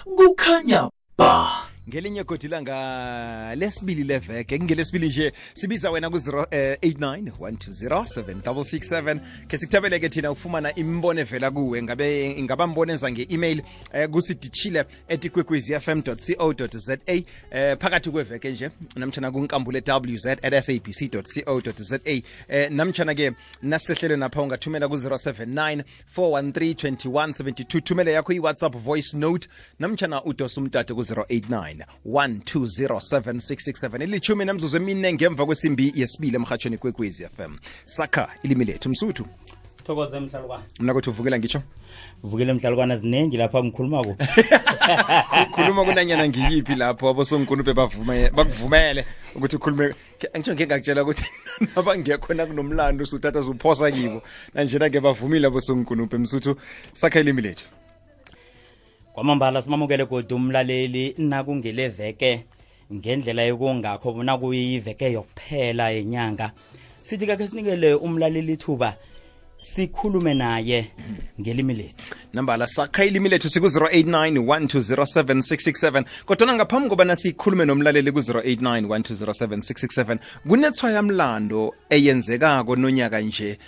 kukhanya ba. Ngelinye godi langa lesibili leveke ngelesibili nje sibiza wena ku 0891207667 ke sikuthabeleke thina ukufumana imbono evela kuwe ingaba mboneza ngeemail kusidichile@kwekwezfm.co.za phakathi kweveke nje namtjana kunkambule.wz@sabc.co.za namtjana ke nasihlelo napha ungathumela ku 0794132172 thumele yakho iWhatsApp voice note namtjana udosa umtato ku 0891207667 ilithumi namzuzu emine ngemva kwesimbi yesibili emhathweni kwekwezi FM sakha ilimi lethu msuthu thokoze mhlalukwana mina kuthi uvukela ngitsho uvukele mhlalukwana zinengi lapha ngikhuluma ku khuluma kunanyana ngiyiphi lapho abosonkunube bakuvumele ukuthi ukhulume ngitsho ngingakutshela ukuthi nabangekhona kunomlando usuthatha uzuphosa kibo nanjena ke bavumile abosonkunube msuthu sakha ilimi lethu kwamambala simamukele kodwa umlaleli nakungeleveke ngendlela yokungakho bona kuyiveke yokuphela yenyanga sithi kake sinikele umlaleli thuba sikhulume naye ngelimi lethu nambala sakha ilimi lethu siku 0891207667 kodwa ngaphambi kobana sikhulume nomlaleli ku 0891207667 kunethwa yamlando eyenzekako nonyaka nje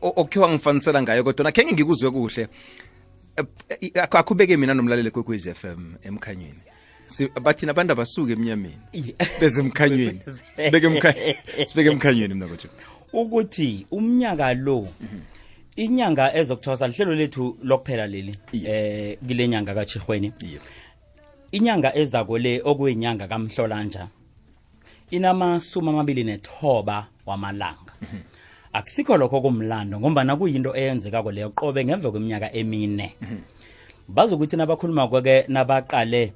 okhiwa ngifanisela ngayo kodwa kenge ngikuzwe kuhle akubeke mina nomlaleli kwekwezi FM emkhanyweni bathina abantu abasuke emnyameni beze emkhanyweni sibeke emkhanyweni mina kuthi ukuthi umnyaka lo inyanga ezokuthosa lihlelo lethu lokuphela leli kule nyanga kaChirhweni inyanga ezako le okuyinyanga kaMhlolanja inamasuma 29 wamalanga akusikho lokho kumlando ngoba kuyinto eyenzekako leyo qobe ngemva kweminyaka emine bazokuthi nabakhuluma kwake nabaqale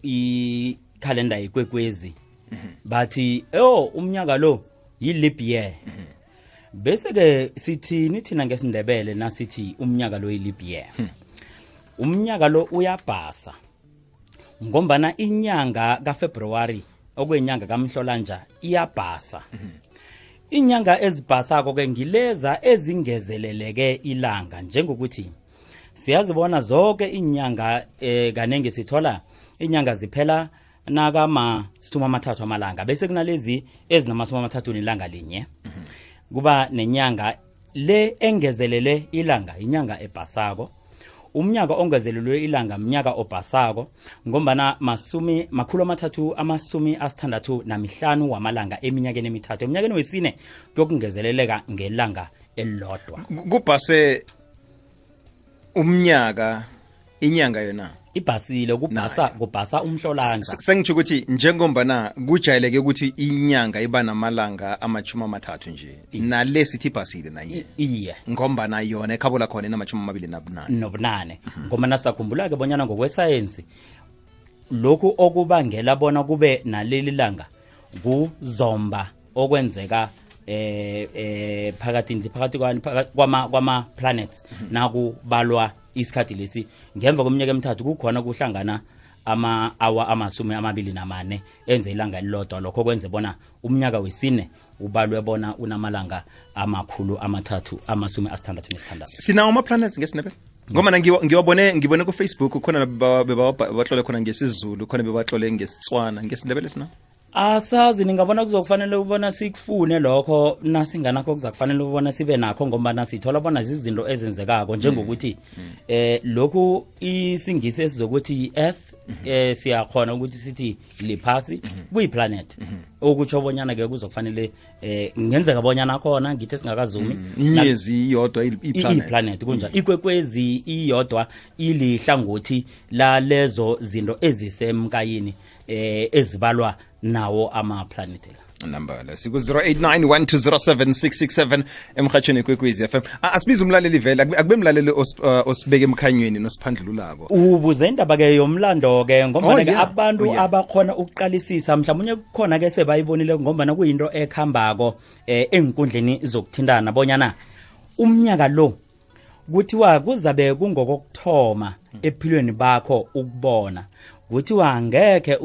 ikhalenda yekwekwezi bathi umnyaka lo yi-leap year bese ke sithini thina ngesindebele nasithi umnyaka lo yi-leap year umnyaka lo uyabhasa ngombana inyanga kaFebruary okuyinyanga kaMhlolanja iyabhasa inyanga ezibhasako ke ngileza ezingezeleleke ilanga njengokuthi siyazibona zonke inyanga kanenge sithola inyanga ziphela nakama 30 amalanga bese kunalezi ezinamasumi 30 ilanga linye kuba nenyanga le engezelele ilanga inyanga ebhasako umnyaka ongezelelwe ilanga mnyaka obhasako ngombana makhulu amathathu amasumi asithandathu namihlanu wamalanga eminyakeni emithathu eminyakeni wesine kuyokungezeleleka ngelanga elilodwa kubhase umnyaka inyanga yona ibhasile kubhasa umhlolanja sengitsho ukuthi njengombana kujayeleke ukuthi inyanga iba namalanga amachuma amathathu nje nalesithi ibhasile naye iye ngombana yona ekhabola khona enamachuma 28 ngoba nasakhumbula ke bonyana ngokwesayensi lokhu okubangela bona kube naleli langa kuzomba okwenzeka phakathi kwama planets nakubalwa isikhathi lesi ngemva kweminyaka emithathu kukhona kuhlangana ama-hour amasumi 24 enze ilanga elilodwa lokho kwenze bona umnyaka wesine ubalwe bona unamalanga amakhulu amathathu amasumi 66 sinawo ama-planets ngesinebe ngoba ngibone ku Facebook khona bebatlole khona ngesizulu khona bebatlole ngesitswana ngesindebele sina asazi ningabona kuzokufanele ubona sikufune lokho nasinganakho kuzakufanele ubona sibe nakho ngoba sithola bona izinto ezenzekako njengokuthi lokhu isingisi esizokuthi earth siyakhona ukuthi sithi liphasi kuyiplanet okutsho bonyana ke kuzokufanele ngenzeka bonyana khona ngithe singakazumi inyezi iyodwa iplanet kunjalo ikwekwezi iyodwa ilihlangothi la lezo zinto ezisemkayini ezibalwa nawo ama-planet nambala siku 0891207667 emhathweni kwekwezi FM asibiza umlaleli vela akube mlaleli osibeke emkhanyweni nosiphandlululako ubuze indaba ke yomlando ke ngoba ke abantu abakhona ukuqalisisa mhlawumnye kukhona ke sebayibonile ngoba kuyinto ekhambako enkundleni zokuthindana bonyana umnyaka lo kuthiwa kuzabe kungokokthoma ephilweni bakho ukubona kuthiwa ngeke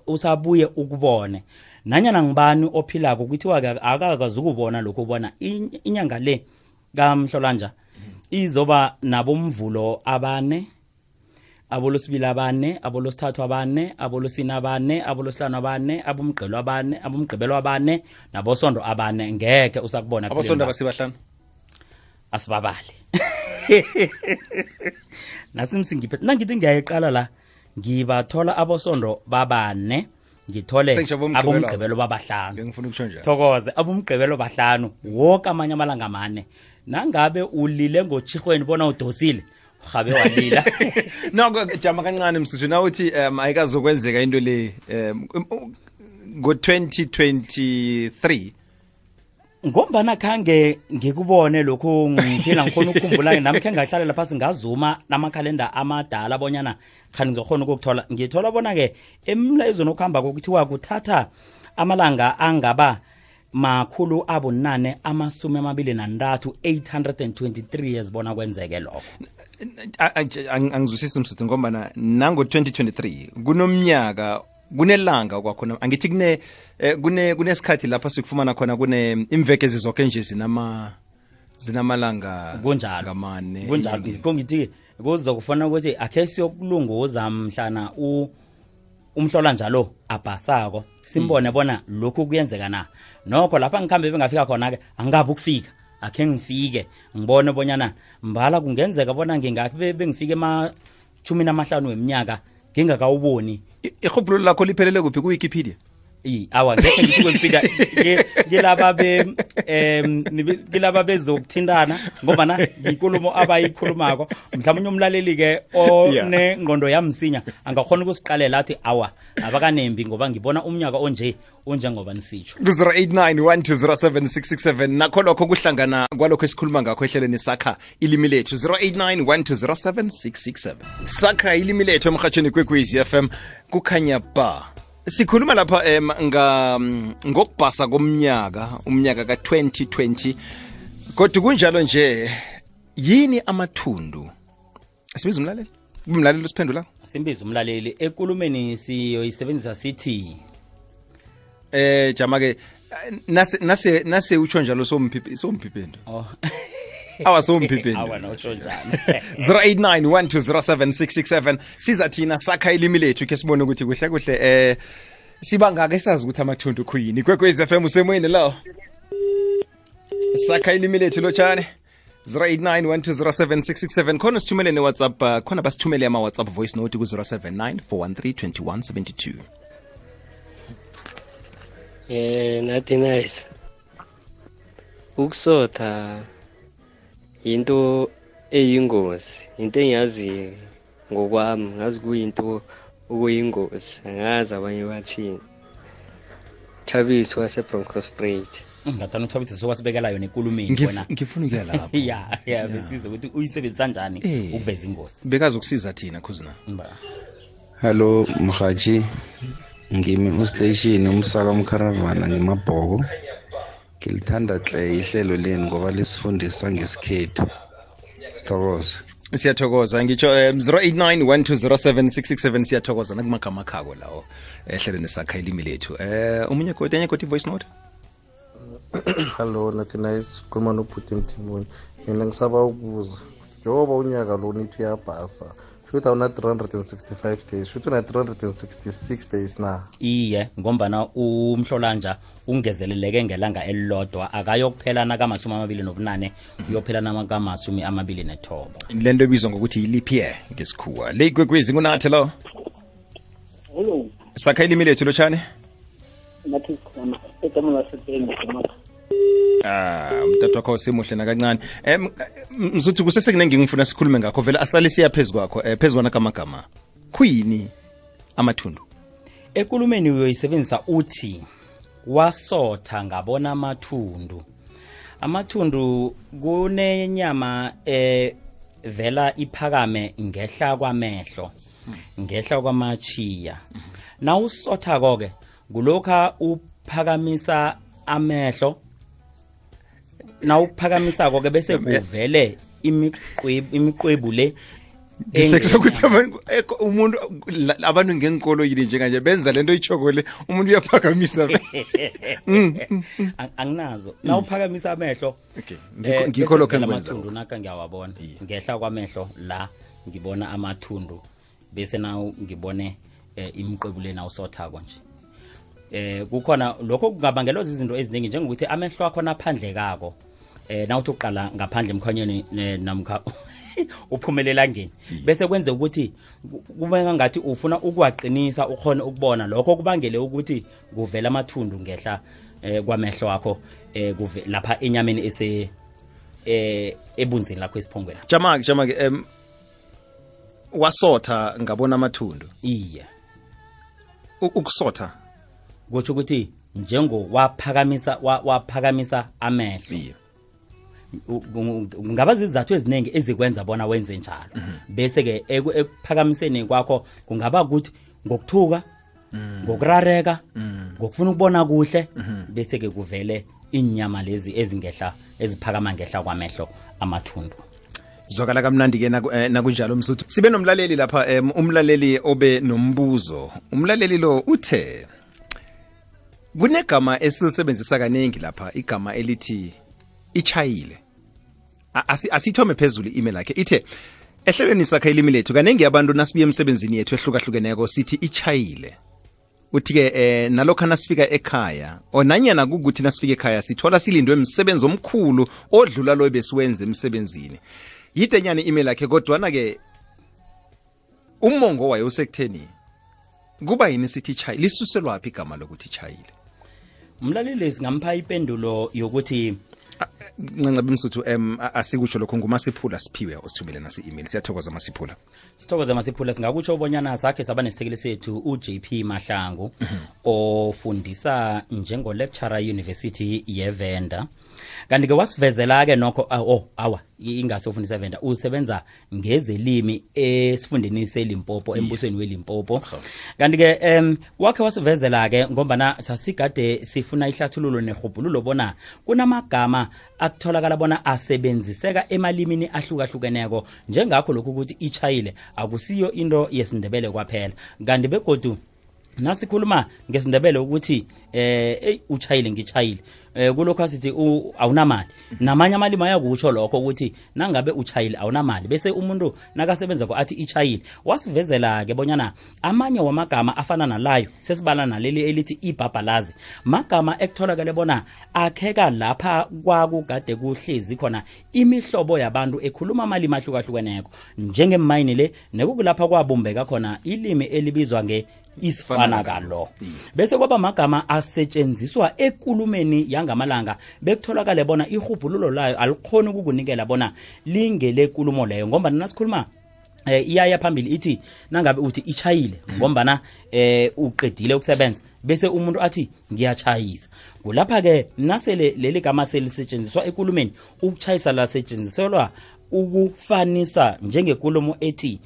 usabuye ukubone nanyana ngibani ophilako kuthiwa akakazi ukubona lokho ubona inyanga le kaMhlolanja izoba nabomvulo abane abolosibili abane, abolosithathu abane, abolosine abane, abolosihlanu abane, abomgqibelo abane, abomgqibelo abane, nabosondo abane. Ngeke usakubona abosondo abasibahlanu asibabali. Nasimsingiphe nangithi ngiyayiqala la ngibathola abosondo babane, ngithole abomgqibelo babahlanu. Ngifuna ukusho njalo. Thokoze abomgqibelo bahlanu wonke amanye amalanga amane. Nangabe ulile ngochihweni bona udosile gabe walila. No jama kancane msuthu na uthi ayikazokwenzeka into le ngo 2023 ngombana khange ngikubone lokho ngiphila ngikhona ukukhumbula nami khe ngahlalela phasi ngazuma namakhalenda amadala abonyana khani ngizokhona ukukuthola ngithola bona ke emlayezweni okuhamba kokuthiwa kuthatha amalanga angaba makhulu abunane amasumi amabili nantathu 823 yazibona kwenzeke lokho. Angizwisisi msuthu ngoba nango 2023 kunomnyaka kunelanga kwakhona angithi kunesikhathi lapha sikufumana khona imveke zizonke nje zinamalanga ngamane kunjalo kongithi kuzokufana ukuthi akhe siyokulunguza mhlana umhlola njalo abhasako simbone bona lokhu kuyenzeka na nokho lapha ngikhambe bengafika khona ke angabe ukufika akhe ngifike ngibone bonyana mbala kungenzeka bona ngingakhe bengifike ema-15 weminyaka ngingakawuboni. Ihubhulo lakho liphelele kuphi ku Wikipedia? Awa ngeke ngithi kwempika ngilaba bezokuthindana ngoba na inkulumo abayikhulumako mhlawumnye umlaleli ke onengqondo yamsinya angakhona ukusiqalela athi awa abakanembi ngoba ngibona umnyaka onje ngoba nisitsho. 0891207667 nakho lokho kuhlangana kwalokho esikhuluma ngakho ehlelweni sakha ilimi lethu 0891207667 sakha ilimi lethu emhathweni kwekwezi FM kukhanya ba. Sikhuluma lapha ngokubhasa komnyaka umnyaka ka2020 kodwa kunjalo nje yini amathundu asibiza umlaleli usiphendula simbiza umlaleli ekulumeni siyoyisebenzisa sithi jama ke nase utsho njalo somphiphendo awa somphiphendo awa notsho njalo 0891207667 siza thina sakha ilimi lethu ke sibone ukuthi kuhle sibangaka esazi ukuthi amathundu khuyini kwekwezi FM usemoyeni lo sakha ilimi lethu lotshane 0891207667 khona sithumele ne WhatsApp khona basithumele ama WhatsApp voice note ku 0794132172 nathi nice ukusotha into eyingozi into engiyazi ngokwami ngazi kuyinto okuyingozi angazi abanye bathini. Thabiso waseBroncosprayed ngathana uThabisa sokwasibekela yona enkulumeni bona ngifuna ukuya lapho ya besizwe ukuthi uyisebenzisa kanjani ukuveza ingozi bekazi ukusiza thina khuzina. Hello Mhaji ngimi ustation umsaka umcaravana ngemabhoko ngilithanda hle ihlelo leni ngoba lisifundisa ngesikhethu. Thokoza siyathokoza ngitsho 0891207667 siyathokoza nakumagama khako lawo ehlelweni sakha ilimi lethu umunye kodwa voice note. Hello nathi nice khuluma nobhuti Mthimoni mina ngisaba ukubuza njengoba unyaka lo nithi uyabhasa futhi awuna 365 days futhi una 366 days na. Iye ngombana umhlolanja ungezeleleke ngelanga elilodwa akayokuphela naka28 uyophela naka29. Lento ebizwa ngokuthi leap year ngesikhuwa le kwekwezi kunathi lo. Hello sakha ilimi lethu lotshane nathi khona etamela sethenga mntathu wakho simuhle nakancane mzuthi kusesekunenge ngifuna sikhulume ngakho vele asale siya phezkwakho phezwana kamagama khuyini amathundu ekulumeni uyoyisebenzisa uthi wasotha ngabona amathundu kunenyama vela iphakame ngehla kwamehlo ngehla kwamachiya na usotha konke kulokha uphakamisa amehlo na ukuphakamisa konke bese kuvele imiqwebu le sekuthi umuntu abantu ngenkolo yini njenganje benza lento ichokole umuntu uyaphakamisa anginazo na uphakamisa amehlo ngikho lokho engikwenza amathundu naka ngiyawabona ngehla kwamehlo la ngibona amathundu bese nawo ngibone imiqebuleni awusothako nje kukhona lokho kungabangelwa izinto eziningi njengokuthi amehlo akho naphandle kako nawuthi uqala ngaphandle emkhanyeni namkha uphumelela ngeni bese kwenze ukuthi kube ngathi ufuna ukuwaqinisa ukhona ukubona lokho kubangele ukuthi kuvela amathundu ngehla kwamehlo akho lapha enyameni ese ebunzini lakho esiphongweni jama-ke wasotha ngabona amathundu iya ukusotha kutsho ukuthi njengo waphakamisa amehlo ngaba zizathu eziningi ezikwenza bona wenze njalo bese ke ekuphakamiseni kwakho kungaba ukuthi ngokuthuka ngokurareka ngokufuna ukubona kuhle bese ke kuvele inyama lezi ezingehla eziphakama ngehla kwamehlo amathundu zwakala kamnandi ke nakunjalo msuthu sibe nomlaleli lapha umlaleli obe nombuzo umlaleli lo uthe kunegama esilisebenzisa kaningi lapha igama elithi ichayile asithome phezulu i-email yakhe ithe ehlelweni sakhe ilimi lethu kaningi abantu nasibuye emsebenzini yethu ehlukahlukeneko sithi ichayile uthi-ke nalokho nasifika ekhaya onanyana kukuthi nasifika ekhaya sithola silindwe emsebenzi omkhulu odlula lo besiwenze emsebenzini yidenyana i-email yakhe kodwana-ke umongo wayo usekutheni kuba yini sithi ichayile lisuselwaphi igama lokuthi ichayile umlaleli singampha ipendulo yokuthi ncancabe msuthu asikutsho lokho ngumasiphula siphiwe osithumele nasi email siyathokoza masiphula sithokoza masiphula singakutsho ubonyana sakhe saba nesisekeli sethu uJP Mahlangu ofundisa njengo lecturer University yeVenda kanti ke wasivezela ke nokho ingase ufundisa eVenda usebenza ngezelimi esifundeni seLimpopo embusweni weLimpopo kanti ke wakhe wasivezela ke ngombana sasigade sifuna ihlathululo nehubhululo bona kunamagama akutholakala bona asebenziseka emalimini ahlukahlukeneko njengakho lokhu ukuthi ichayile akusiyo into yesindebele kwaphela kanti begodu nasikhuluma ngesindebele ukuthi uchayile ngichayile kulokho asithi awunamali namanye amalimi ayakutsho lokho ukuthi nangabe uchayile awunamali bese umuntu nakasebenza ko athi ichayile wasivezela ke bonyana amanye wamagama afana nalayo sesibala naleli elithi ibhabhalazi magama ekutholakala bona akheka lapha kwakugade kuhlezi khona imihlobo yabantu ekhuluma amalimi ahlukahlukeneko njengemayini le nekukulapha kwabumbeka khona ilimi elibizwa isifana kalo bese kwaba magama asetshenziswa ekulumeni yangamalanga bekutholakala bona ihubhululo layo alikhona ukukunikela bona lingele kulumo leyo ngoba nasikhuluma iyaya phambili ithi nangabe uthi ichayile ngombana uqedile ukusebenza bese umuntu athi ngiyachayisa kulapha ke nasele leli gama selisetshenziswa ekulumeni ukuchayisa la setshenziselwa ukufanisa njengekulumo ethi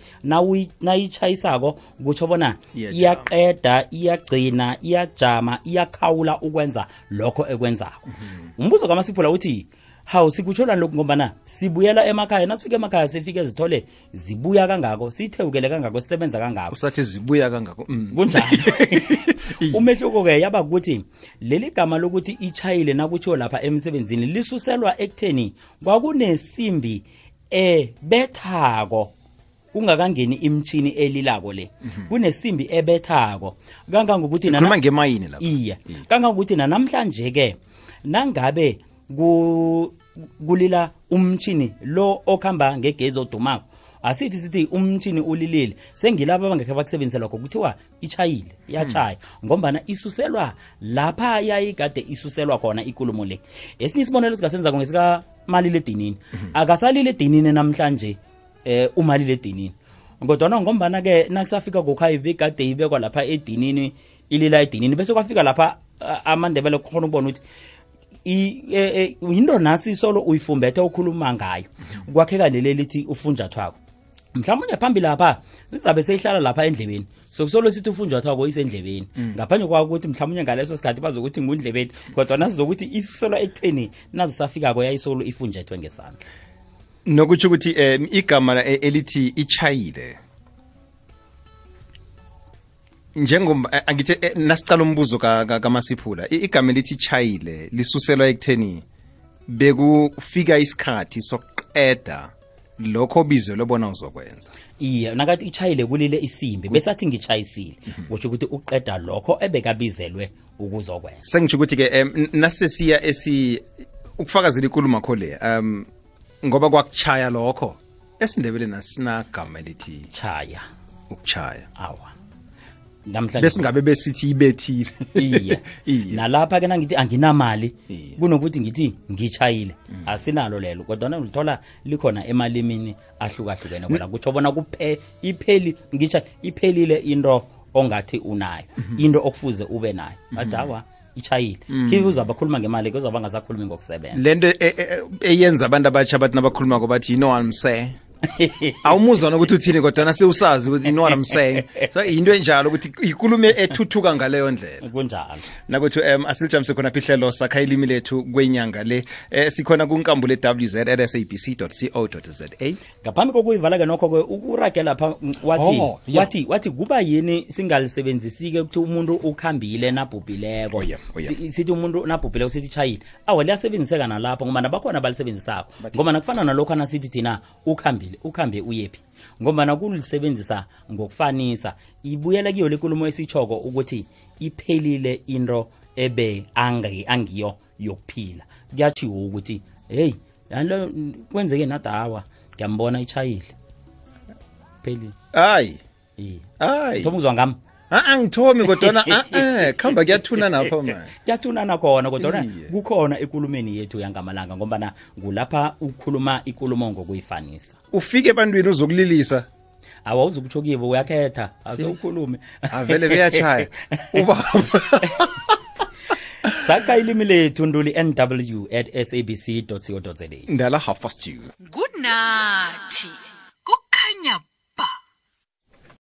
nayichayisako kutsho bona iyaqeda iyagcina iyajama iyakhawula ukwenza lokho ekwenzako umbuzo kaMasiphula uthi hawu sikutshola lokho ngombana sibuyela emakhaya nasifika emakhaya sifike zithole zibuya kangako sithewukele kangako sisebenza kangako usathi zibuya kangako kunjalo umehluko ke yaba ukuthi leli gama lokuthi ichayile nakutsho lapha emsebenzini lisuselwa ekutheni kwakunesimbi bethako kungakangeni imtshini elilako le kunesimbi ebethako kangangokuthi sikhuluma ngemayini lapha iya kangangokuthi namhlanje ke nangabe kulila umtshini lo okhamba ngegezi odumako sithi umtshini ulilile sengilabo abangekhe bakusebenzisela lokho kuthiwa ichayile iyachaya ngombana isuselwa lapha yayigade isuselwa khona ikulumo le esinye isibonelo sikasenza ngesika maliledinini akasalile edinini namhlanje umaliledinini kodwa ngombana ke nakusafika gokhaya begade ibekwa lapha edinini ilila edinini bese kwafika lapha amandebele khona ubona ukuthi into nasi solo uyifumbethe ukhuluma ngayo kwakheka leli lithi ufunjathwako mhlawumbe phambili lapha lizabe seyihlala lapha endlebeni sokusolo sithi ufunjathwako isendlebeni ngaphandle kwa ukuthi mhlawumbe ngaleso sikhathi bazokuthi ngundlebeni kodwa nasizokuthi isola ekutheni nazisafika ko yayisolo ifunjethwe ngesandla nokuthi ukuthi igama elithi ichayile angithi nasicala umbuzo kaMasiphula igama elithi ichayile lisuselwa ekutheni bekufika isikhathi sokuqeda lokho bizo lobona uzokwenza iye nakathi ichayile kulile isimbi besathi ngichayisile kusho ukuthi uqeda lokho ebekabizelwe ukuzokwenza sengisho ukuthi ke nasesiya ukufakazela inkulumo kho le ngoba kwakuchaya lokho esindebeleni asinagama elithi chaya ukuchaya awa namhlanje besingabe besithi ibethile iye nalapha ke nangithi anginamali kunokuthi ngithi ngichayile asinalo lelo kodwa ulithola likhona emalimini ahlukahlukene ngoba kutsho bona iphelile into ongathi unayo into okufuze ube nayo adawa ichayile kibuza abakhuluma ngemali kuzaba ngasakhulumi ngokusebenza lento eyenza abantu abatsha bathi nabakhuluma ngobathi you know what I'm saying awumuzwa nokuthi uthini kodwa nasewusazi ukuthi you know what I'm saying so into enjalo ukuthi ikulume ethuthuka ngaleyo ndlela kunjalo nakuthi asilijamse khona phihlelo sakha ilimi lethu kwenyanga le sikhona kunkambule www.sabc.co.za ngaphambi kokuyivala ke nokho ke ukuragela lapha wathi kuba yini singalisebenzisike ukuthi umuntu ukhambile nabhubhileko sithi umuntu nabhubhileko sithi chayile liyasebenziseka nalapha ngoba nabakhona abalisebenzisako ngoba nakufana nalokho nasithi thina ukhambe uyephi ngoba nakulisebenzisa ngokufanisa ibuyela kiyo lekulumo esichoko ukuthi iphelile into ebe angiyo yokuphila kuyachiwo ukuthi hey lo kwenzeke nadawa ngiyambona ichayile pheli hayi thomuzwa ngami angithomi kodwa khamba kuyathuna napho man kuyathuna khona kodwa kukhona ekulumeni yethu yangamalanga ngoba ngulapha ukhuluma ikulumo ngokuyifanisa ufike ebantwini uzokulilisa awuzukutsho kibo uyakhetha asewukhulume avele beyachaya ubaba sakha ilimi lethu nduli nw@sabc.co.za ndala half past 2 good night kukhanya